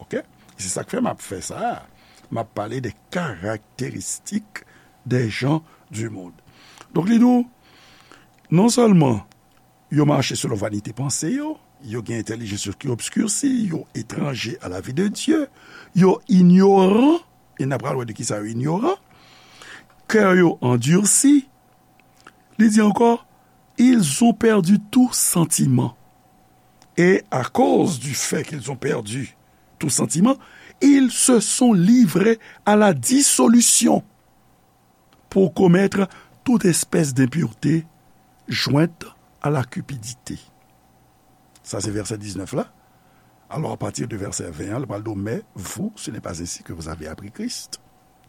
Ok? E se sa k fè m ap fè sa a. M ap pale de karakteristik des gens du monde. Donk, li di w, non sèlman yo mache selon vanite panse yo, yo gen entèlijans yo ki obskirsi, yo etranje a la vi de Dye, yo inyoran, e n ap pral wè de ki sa yo inyoran, kè yo andirsi, li di ankò, ils ont perdu tout sentiment. Et à cause du fait qu'ils ont perdu tout sentiment, ils se sont livrés à la dissolution pour commettre toute espèce d'impureté jointe à la cupidité. Sa se vèsè diznèf la. Alors, à partir de verset vingt, li pral di w, mais vous, ce n'est pas ainsi que vous avez appris Christ.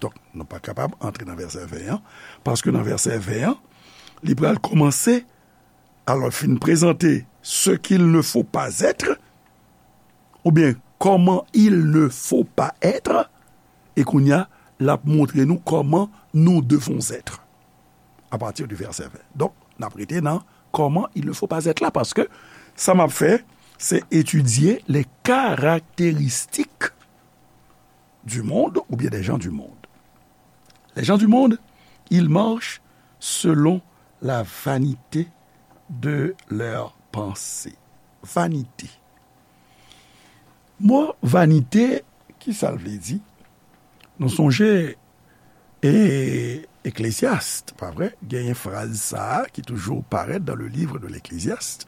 Donk, nou pa kapab antre nan vèsè ven an, paske nan vèsè ven an, li pral kòmanse, alò, fin prezante ce qu'il ne faut pas être, oubyen comment il ne faut pas être, e kounye a, l ap montre nou comment nous devons être, à partir du verset vingt. Donk, n ap rete nan comment il ne faut pas être la, paske sa m ap fè, se etidye les caractéristiques du monde ou bien des gens du monde. Les gens du monde, ils marchent selon la vanité de leurs pensées. Vanite. Mo vanite, ki sa l vle di? Nou sonje, e, Eklesyas, pa vre? Genyen fraz sa a ki toujou parèt dans le livre de l'Ecclésiaste,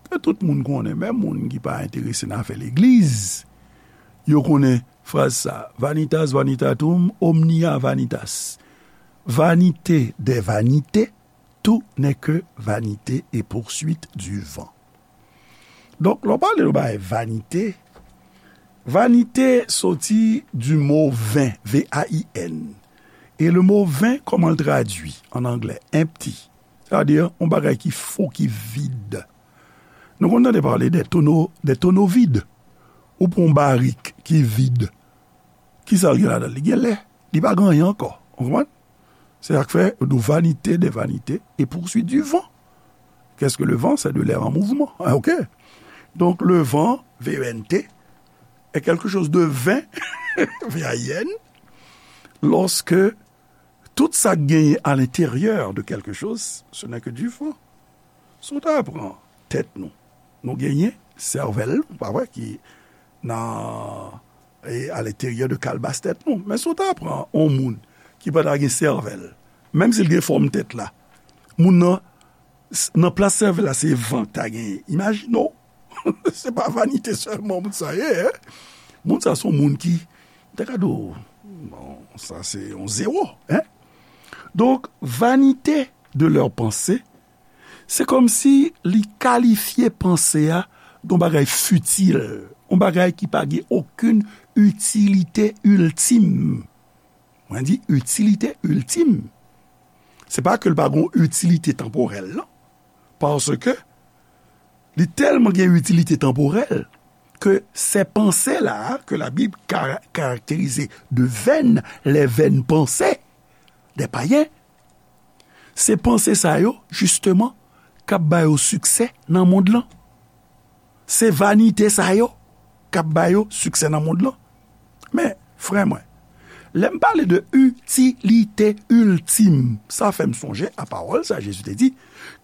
ke tout moun konnen, menm moun ki pa enterese nan afè legliz, yo konnen fraz sa, vanitas vanitatum omnia vanitas. Vanité des vanités, tout n'est que vanité et poursuite du vent. Donk, lè w pale de bagay vanite, vanite soti du mot vain, V A I N. E le mot vain, kòman l tradui an anglè? Empty. Sa vle di, yon bagay ki fo, ki vid. Nou konn tande pale de tono, de tono vid. Ou pran yon barik ki vid. Ki sa l gen ladan l? Li gen lè. Li pa gen anyen ankò. Ou konprann? Se sa k fè yo di w vanité des vanités et poursuite du vent. Qu'est-ce que le vent? C'est de l'air en mouvement. Ah, ok. Donc, le vent, V E N T, est quelque chose de vain, V A I N, lorsque Tout sa k genyen à l'intérieur de quelque chose, ce n'est que du vent. Si w ta pran tèt nou, nou genyen sèvèl, pa vre, ki nan, e, à l'intérieur de kalbas tèt nou. Men si w ta pran yon moun ki pa ta gen sèvèl, menm si l gen fòm tèt la, moun nan, s- nan plas sèvèl la, se van k ta genyen. Imajine w, se pa vanite sèlman moun sa ye, en. Moun sa se yon moun ki, m ta ka di w, bon, sa se yon zewo, en. Donk, vanité de leurs pensées, se kòmsi li kalifye panse a de yon bagay fitil, yon bagay ki pa gen okenn itilite iltim. Mwen di itilite iltim. Se pa ke l pa gen yon itilite tanporèl, non. Paske li tèlman gen itilite tanporèl ke ces pensées-là que la Bible ka- caractérise de vaines, les vaines pensées des païens, se panse sa yo, jisteman, k ap ba yo siksè nan mond lan. Se vanite sa yo k ap ba yo siksè nan mond lan. Men, frè mwen, lè m pale de itilite iltim, sa fè m sonje a pawòl sa Jezi te di,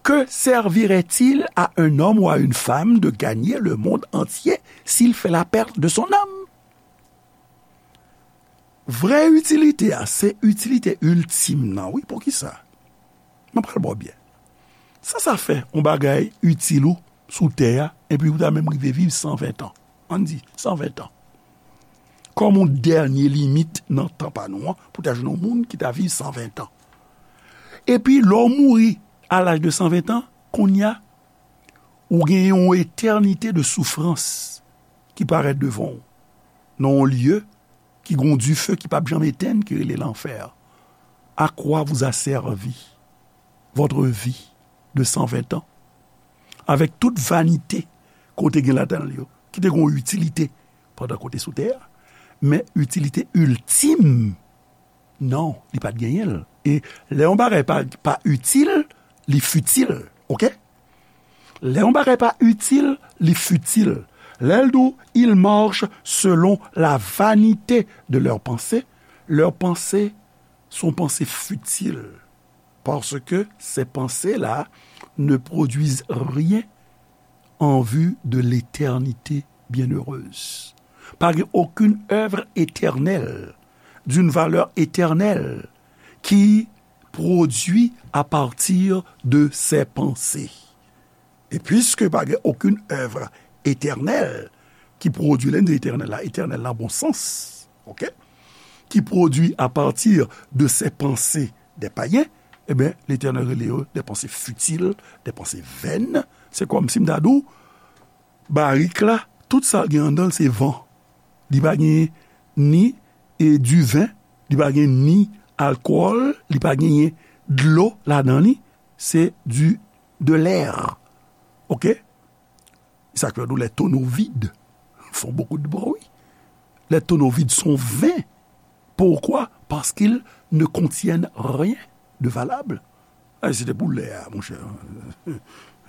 Que servirait-il à un homme ou à une femme de gagner le monde entier s'il fait la perte de son âme? Vrè itilite a, se itilite iltim nan, wi. Poukisa? Mwen pral ba w byen. Sa sa fè yon bagay itil ou sou tè a, epi ou ta menm rive viv san ven tan. Ann di, san ven tan. Kòm yon dènye limit nan tan pa nou an, pou ta jwenn yon moun ki ta viv san ven tan. Epi, lè w mouri a laj de san ven tan, kounye a, ou gen yon etènite de soufrans ki parèt devan w, nan yon lye ki gen yon dife ki p ap janm etenn, ki rele lanfè. À quoi vous a servi votre vie de cent vingt ans? Avec toute vanité ke w te gen ladan l yo, ki te gen yon itilite pandan ke w te sou tè a, men itilite iltim, non, li pa t genyen l. E lè yon bagay pa, pa itil, li fitil, oke? Lè yon bagay pa itil, li fitil. Lè l di w, ils marchent selon la vanité de leurs pensées, leurs pensées sont pensées futiles. Parce que ces pensées-là ne produisent rien en vue de l'éternité bienheureuse. Pa gen okenn èv etènèl, d'une valeur éternelle, ki pwodui à partir de ces pensées. E piske pa gen okenn èv etènèl ki pwodui, lè n di etènèl la, etènèl nan bon sans, oke? Ki pwodui à partir de ces pensées des païens, ebyen, Letènèl rele yo des pensées futiles, des pensées vaines. Se kòmsi m ta di w, barik la, tout sa l gen anndan l se van. Li pa gen ni, e, diven, li pa gen ni alkòl, li pa genyen dlo ladan li, se du, de l'air. Oke? Sa k fè nou, les tonneaux vides font beaucoup de bruit. Les tonneaux vides sont vains. Pourquoi? Parce qu'ils ne contiennent rien de valable. Ay, se te pou lè a, monchè.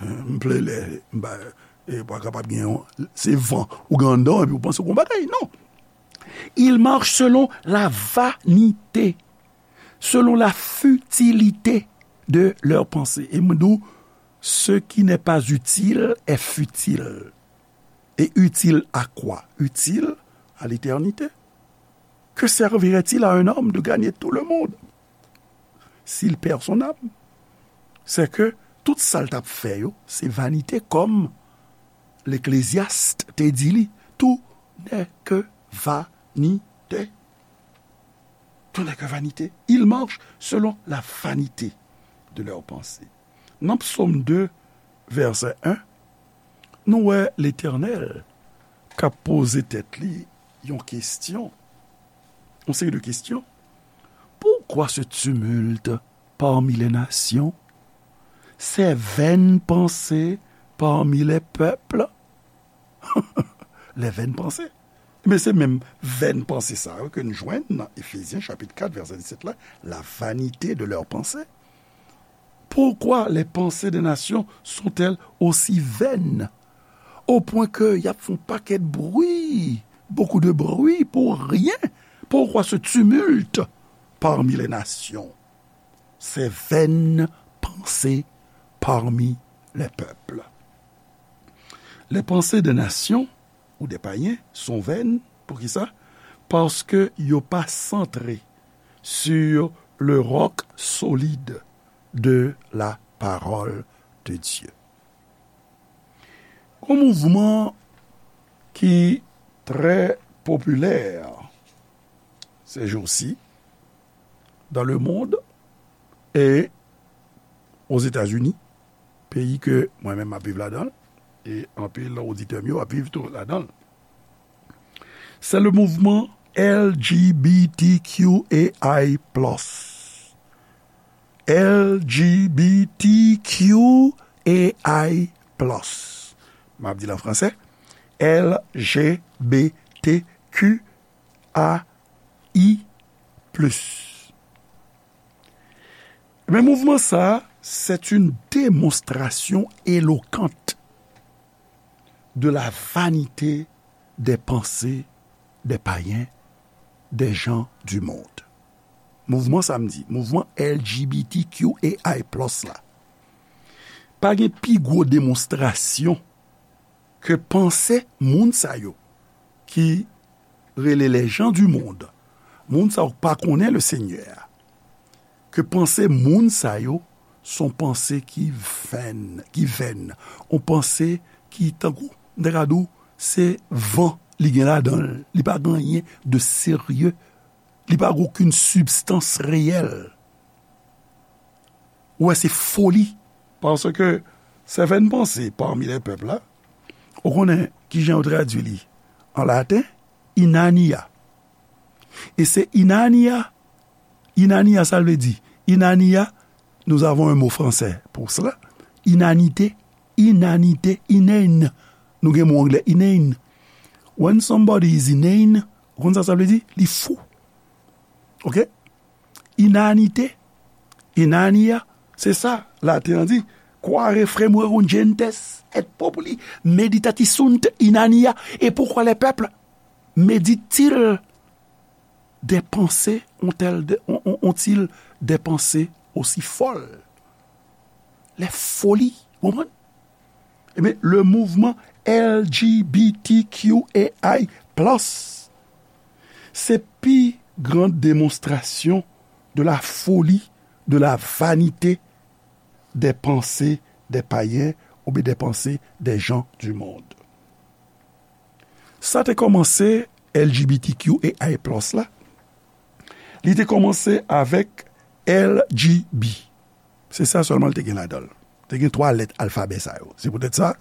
M plen lè, m pa, e pa kapab gen yon, se van ou gen anndan w epi w panse w gen yon bagay. Non. Ils marchent selon la vanité, selon la futilité de leurs pensées. E mwen di w, ce qui n'est pas utile est futile. Et utile à quoi? Utile à l'éternité. Que servirait-il à un homme de gagner tout le monde s'il perd son âme? Se ke tout sa l t ap fè yo, se vanite, kòm Leklezyas te di li, tout n'est que vanité. Tout n'est que vanité. Ils marchent selon la vanité de leurs pensées. Nan Psaume deux, verset un, nou wè Letènèl k ap poze tèt li yon kesyon, yon seri de kesyon. Pourquoi ce tumulte parmi les nations, ces vaines pensées parmi les peuples? Les vaines pensées. Men se menm vèn panse sa yo ke n jwenn nan Efezyen chapit kat, vèsè disèt la, la vanité de leurs pensées. Pourquoi les pensées des nations sont-elles aussi vaines, au point que y ap fè yon pakèt bri, beaucoup de bruit pour rien? Pourquoi ce tumulte parmi les nations? Ces vaines pensées parmi les peuples. Les pensées des nations ou des païens sont vaines. Poukisa? Paske yo pa santre sur le roc solide de la parole de Dieu. Yon mouvman ki trè popilè ces jours-ci dans le monde et aux États-Unis, peyi ke mwen menm m ap viv ladan l, e anpil oditè m yo ap viv tou ladan l. C'est le mouvement L G B T Q A I plus. L G B T Q A I plus. M ap di l an fransè. L G B T Q A I plus. Men mouvman sa, c'est une démonstration éloquente de la vanité des pensées des païens, des gens du monde. Mouvman sa m di, mouvman L G B T Q A I plus la, pa gen pi gwo demonstrasyon ke panse moun sa yo ki rele les gens du monde, moun sa yo k pa konnen le Senyè a, ke panse moun sa yo s on panse ki vèn, ki vèn, on panse ki tankou, m ta ka di w, se van li gen ladan l, li pa gen anyen de serye, li pa gen okenn sibstans reyèl. Ou wè, se foli. Paske sèvèn panse parmi les peuples la, ou konnen kijan yo tradui li an laten? Inania. E se inania, inania sa l vle di? Inania, nous avons un mot français pour cela. Inanite, inanite, inane. Nou gen mo anglè, inane. When somebody is inane, ou konn sa sa vle di? Li fou. Ok? Inanite, inania, se sa, laten an di, quare fremuerunt gentes et populi meditatisunt inania. Et pourquoi les peuples méditent-ils des pensées, ont-elles de- ont- ont- ont-ils des pensées aussi folles? Les folies, ou konprann? Ebyen, le mouvement L G B T Q A I plus, se pi gran demonstrasyon de la folie, de la vanité des pensées des païens oubyen des pensées des gens du monde. Sa te kòmanse L G B T Q A I plus la. Li te kòmanse avèk L G B. Se sa sèlman l te gen ladan l. Te gen twa lèt alfabè sa yo. Se poutèt sa,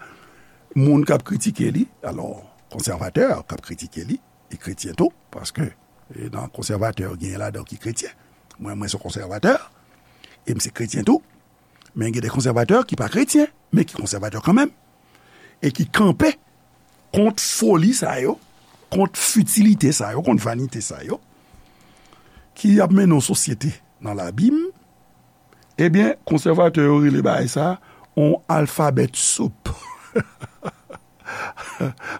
moun k ap kritike li, alò, konsèvatè k ap kritike li, e kretyen tou, paske, e, nan konsèvatè yo genyen ladan yo ki kretyen. Mwen, mwen se konsèvatè, e m se kretyen tou. Men gen de konsèvatè ki pa kretyen, men ki konsèvatè kanmenm, e ki kanpe kont foli sa yo, kont fitilite sa yo, kont vanite sa yo, ki ap mennen yon sosyete nan labim. Ebyen, konsèvatè yo rele bagay sa yon alfabèt soup.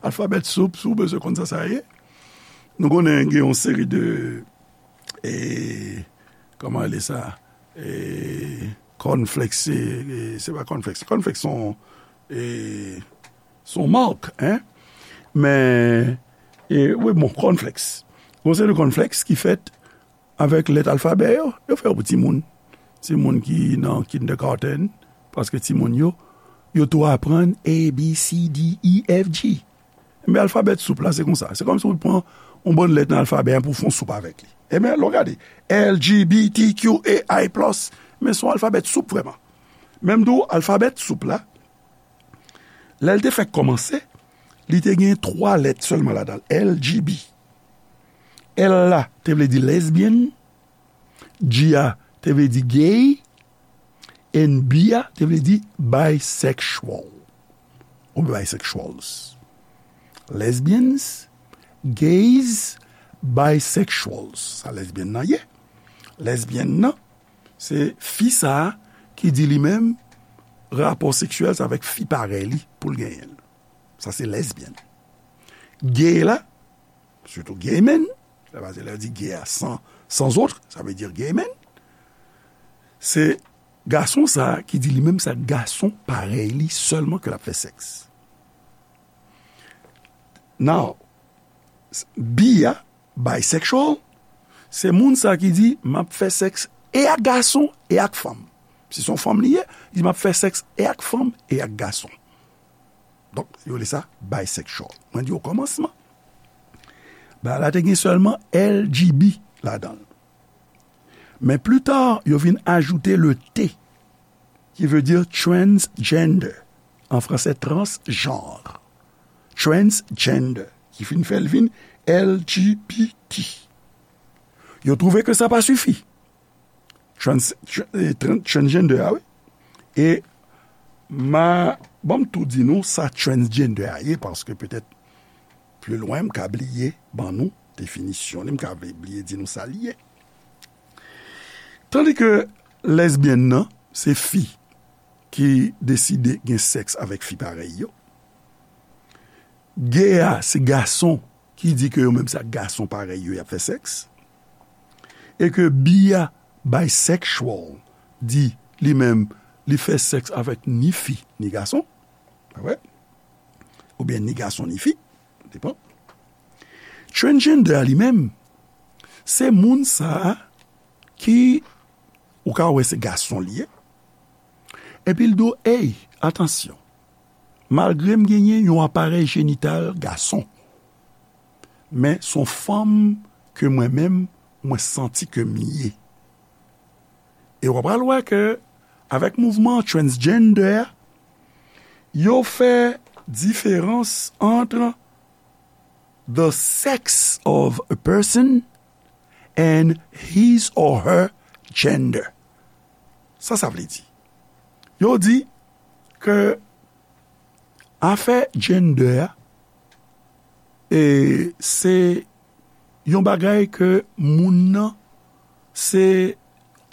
Alfabèt soup, si w bezwen konn sa sa ye. Nou konnen gen yon seri de, e, kòman rele sa? E, cornflakes, e, e, se pa cornflakes. Cornflakes se yon, e, se yon mak, en. Men, e, wi, bon, cornflakes. Yon seri de cornflakes ki fèt avèk lèt alfabè yo, yo fè yo pou timoun. Timoun ki nan kindergarten, paske timoun yo, yo tou aprann A, B, C, D, E, F, G. Men alfabèt soup la, se konsa. Se kòmsi w pran yon bann lèt nan alfabè a pou w fè yon soup avèk li. Ebyen, lè w gade, L G B T Q A I plus, men se yon alfabèt soup vrèman. Menm tou, alfabèt soup la, lè l te fèk kòmanse, li te gen twa lèt sèlman ladan l, L G B. L la te vle di lesbian, G a te vle di gay, and B a te vle di bisexual. Ou bisexuals. Lesbians, gays, bisexuals. Sa lesbian nan ye. Lesbian nan, se fi sa a ki di li menm rapò seksyèl se avèk fi parèy li pou l genyen l. Sa se lesbian. Gay la, surtout gay men, sa vle di lè yo di gay a sans, sans autre, ça veut dire gay men. Se gason sa a ki di li menm se ak gason parèy li sèlman ke l ap fè sèks. Now, bi a, bisexual, se moun sa ki di, "M ap fè sèks e ak gason e ak fanm." Si se yon fanm li ye, li di, "M ap fè sèks e ak fanm e ak gason." Donk, yo rele sa bisexual. Mwen di okòmansman, bagay la te gen sèlman L G B ladan l. Men pli ta, yo vin ajoute le T, ki vle di transgender, an fransè, transgenre. Transgender, ki fin fè l vin L G B T. Yo twouve ke sa pa sifi. Trans, tr-, eh, tran-, transgender a, wi. E ma, ban m tou di nou sa transgender a ye, paske petèt pli lwen m ka bliye ban nou definisyon li, m ka bliye di nou sa li ye. Tandi ke lesbyèn nan, se fi ki deside gen sèks avèk fi parèy yo. Gay a, se gason ki di ke yo menm se ak gason parèy yo y ap fè sèks. E ke bi a, bisexual, di li menm li fè sèks avèk ni fi, ni gason. Pa vre? Oubyen ni gason, ni fi. Depan. Transgender a li menm, se moun sa a ki, ou ka wè se gason li ye. Epi l di w, "Ey, atansyon. Malgre m genyen yon aparèy jenital gason, men se yon fanm ke mwen menm, mwen santi ke m ye." E w pral wè ke, avèk mouvman transgender, yo fè diferans ant the sex of a person and his or her gender. Sa sa vle di? Yo di ke afè gender a, e, se yon bagay ke moun nan, se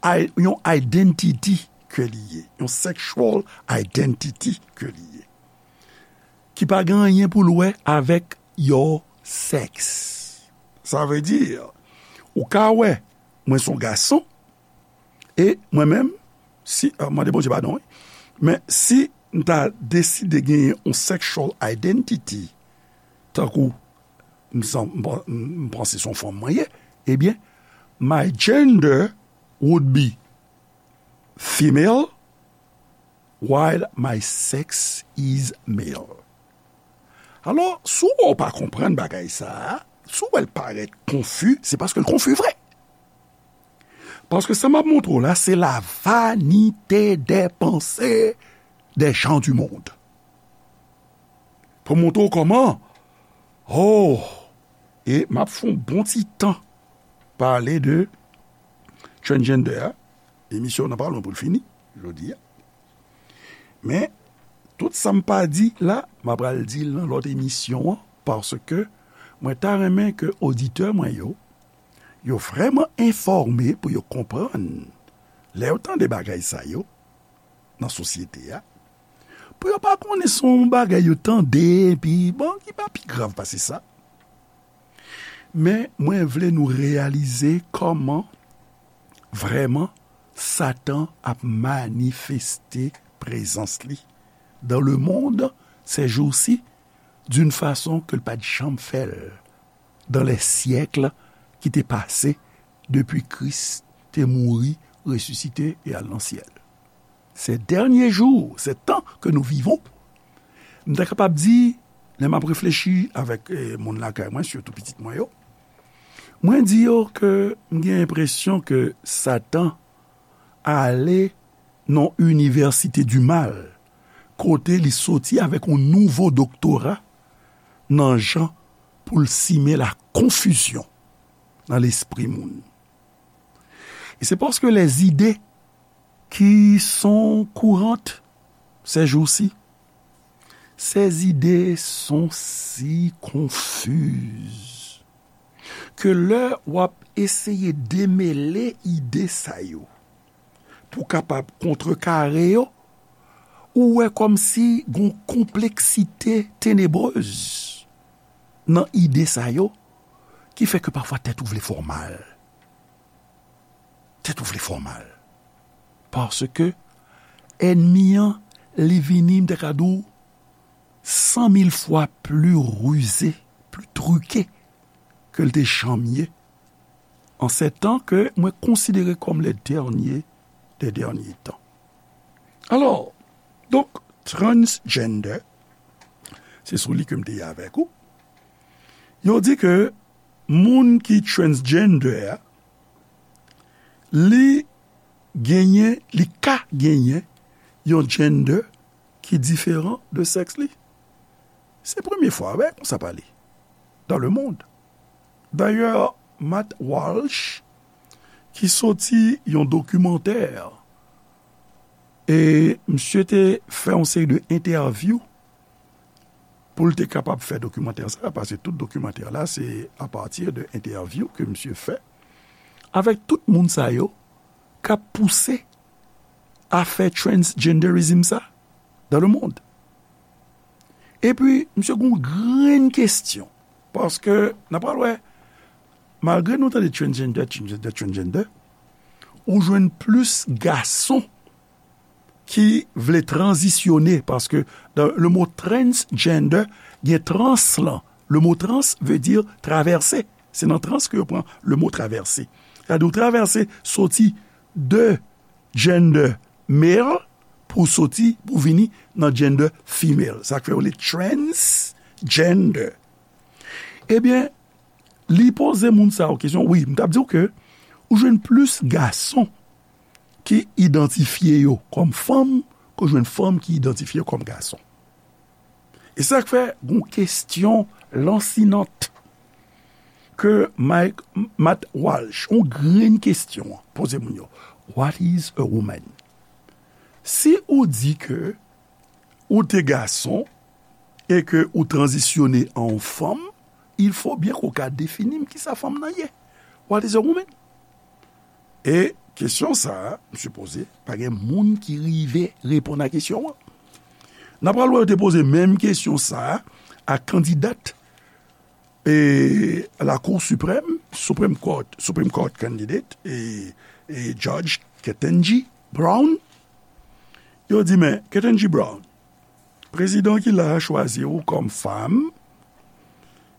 i-, yon identity ke li ye, yon sexual identity ke li ye, ki pa gen anyen pou l wè avèk your sex. Sa vle di, ou ka wè, mwen se yon gason, e mwen menm, si, ah, mande Bondye padon, wi. Men si m ta deside genyen yon sexual identity, tankou m san-, m pa-, m panse se yon fanm mwen ye, ebyen, my gender would be female, while my sex is male. Alò, si w wè w pa konprann bagay sa a, si w wè l parèt konfi, se paske l konfi vre. Paske sa m ap montre w la, se la vanité des pensées des gens du monde. Pou montre w kòman, oh, e m ap fè yon bon ti tan pale de transgender a. Emisyon nan pa lwen pou l fini, jodi a. Men, tout sa m pa di la, m ap pral di l nan lòt emisyon an, paske mwen ta renmen ke oditè mwen yo, yo vrèman enfòme pou yo konprann. Lè yo tande bagay sa yo, nan sosyete a, pou yo pa konnen se yon bagay yo tande, epi, bon, ki pa pi grav pase sa. Men mwen vle nou reyalize kòman vrèman Satan ap manifeste prezans li dans le monde ces jours-ci d'une façon ke l pa t janm fè l dans les siècles ki te pase depi Kris te mouri, resisite e al nan syèl. Ces derniers jours, ces temps que nous vivons, m ta kapab di, lè m ap reflechi avèk, eh, moun lakay mwen, sitou pitit mwen yo, mwen di yo ke m gen enpresyon ke Satan ale nan inivèsite di mal, kote li soti avèk yon nouvo doktora nan jan pou l simen la konfizyon nan lespri moun. E se paske les idées qui sont courantes ces jours-ci, ces idées sont si confuses ke lè w ap eseye demele ide sa yo pou kapab kontrekare yo, ou wè kòmsi gon konpleksite tenebrez nan ide sa yo ki fè ke pafwa tèt ou vle fè w mal. Tèt ou vle fè w mal. Paske ènmi an, li vini, m te ka di w, san mil fwa pli rize, pli trike ke l te janm ye, an se tan ke mwen konsidere kòm le dènye dè dènye tan. Alò, donk, transgender, se sou li ke m te ye avèk ou. Yo di ke moun ki transgender a, li genyen, li ka genyen yon gender ki diferan de sèks li. Se premye fwa, wè, konsa pale. Dans le monde. Dayè, Matt Walsh, ki soti yon dokimantè, e misye te fè yon seri de entèvyou pou l te kapab fè dokimantè sa, paske tout dokimantè la, se apati de entèvyou ke misye fè avèk tout moun sa yo k ap pouse afè transgenderism sa dans le monde. Epi, misye gen yon grenn kesyon, paske n ap pral wè, malgre nou tande transgender, transgender, transgender, ou jwenn plis gason ki vle tranzisyone, paske dans le mot transgender, gen trans lan. Le mot trans veut dire traverser. Se nan trans ke yo pran le mot traverser. Sa di w travèse soti de gender male pou soti, pou vini nan gender female. Sa k fè yo le transgender. Ebyen, li poze moun sa yo kesyon. Wi, m t ap di w ke ou jwenn plis gason ki idantifye yo kòm fanm ke w jwenn fanm ki idantifye yo kòm gason. E sa k fè gon kesyon lansinant ke Mike, Matt Walsh, yon grenn kesyon, poze moun yo. What is a woman? Si ou di ke ou te gason e ke ou tranzisyone an yon fanm, il faut bien ke ou ka defini m kisa fanm nan ye. What is a woman? E kesyon sa a, m sipoze, pa gen moun ki rive reponn a kesyon an. N ap pral wè yo te poze menm kesyon sa a a kandidat e Lakou Siprèm, Supreme Court, Supreme Court candidate, e, e Judge Ketanji Brown. Yo di, men, Ketanji Brown, prezidan ki la a chwazi w kòm fanm,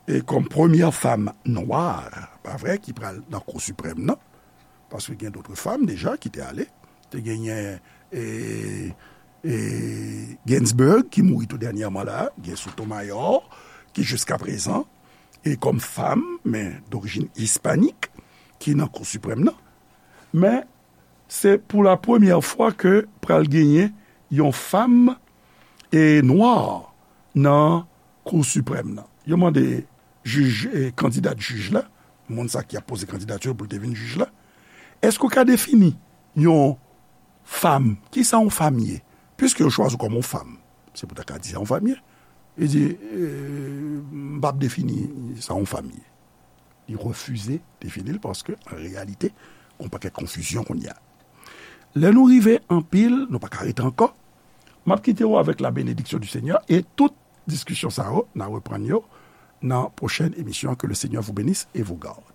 e kòm premyè fanm nwa, pa vre, ki pral nan Kou Siprèm nan, paske gen dòt fanm deja ki te ale, te genyen, e, e Ginsburg, ki mouri tou dènyèman la, gen Sotomayor, ki jiskaprezan, e kòm fanm, men dorijin ispanik, ki nan Kou Siprèm nan. Men, se pou la premyè fwa ke pral genyen yon fanm e nwa nan Kou Siprèm nan. Yo mande jij, e, kandidat jij la, moun sa ki ap poze kandidati pou l te vin jij la, èske w ka defini yon fanm, kisa yon fanm ye? Piske yo chwazi w kòm yon fanm, se pou ta ka di sa yon fanm ye. Li di, e, m p ap defini sa yon fanm ye. Li refize defini l paske, an reyalite, gon pakèt konfizyon kounye a. Lè nou rive anpil, nou pa ka rete ankò. M ap kite w avèk la bénédiction du Seigneur e tout diskisyon sa yo, n a reprann yo nan pwochèn emisyon. Que le Seigneur vous bénisse et vous garde.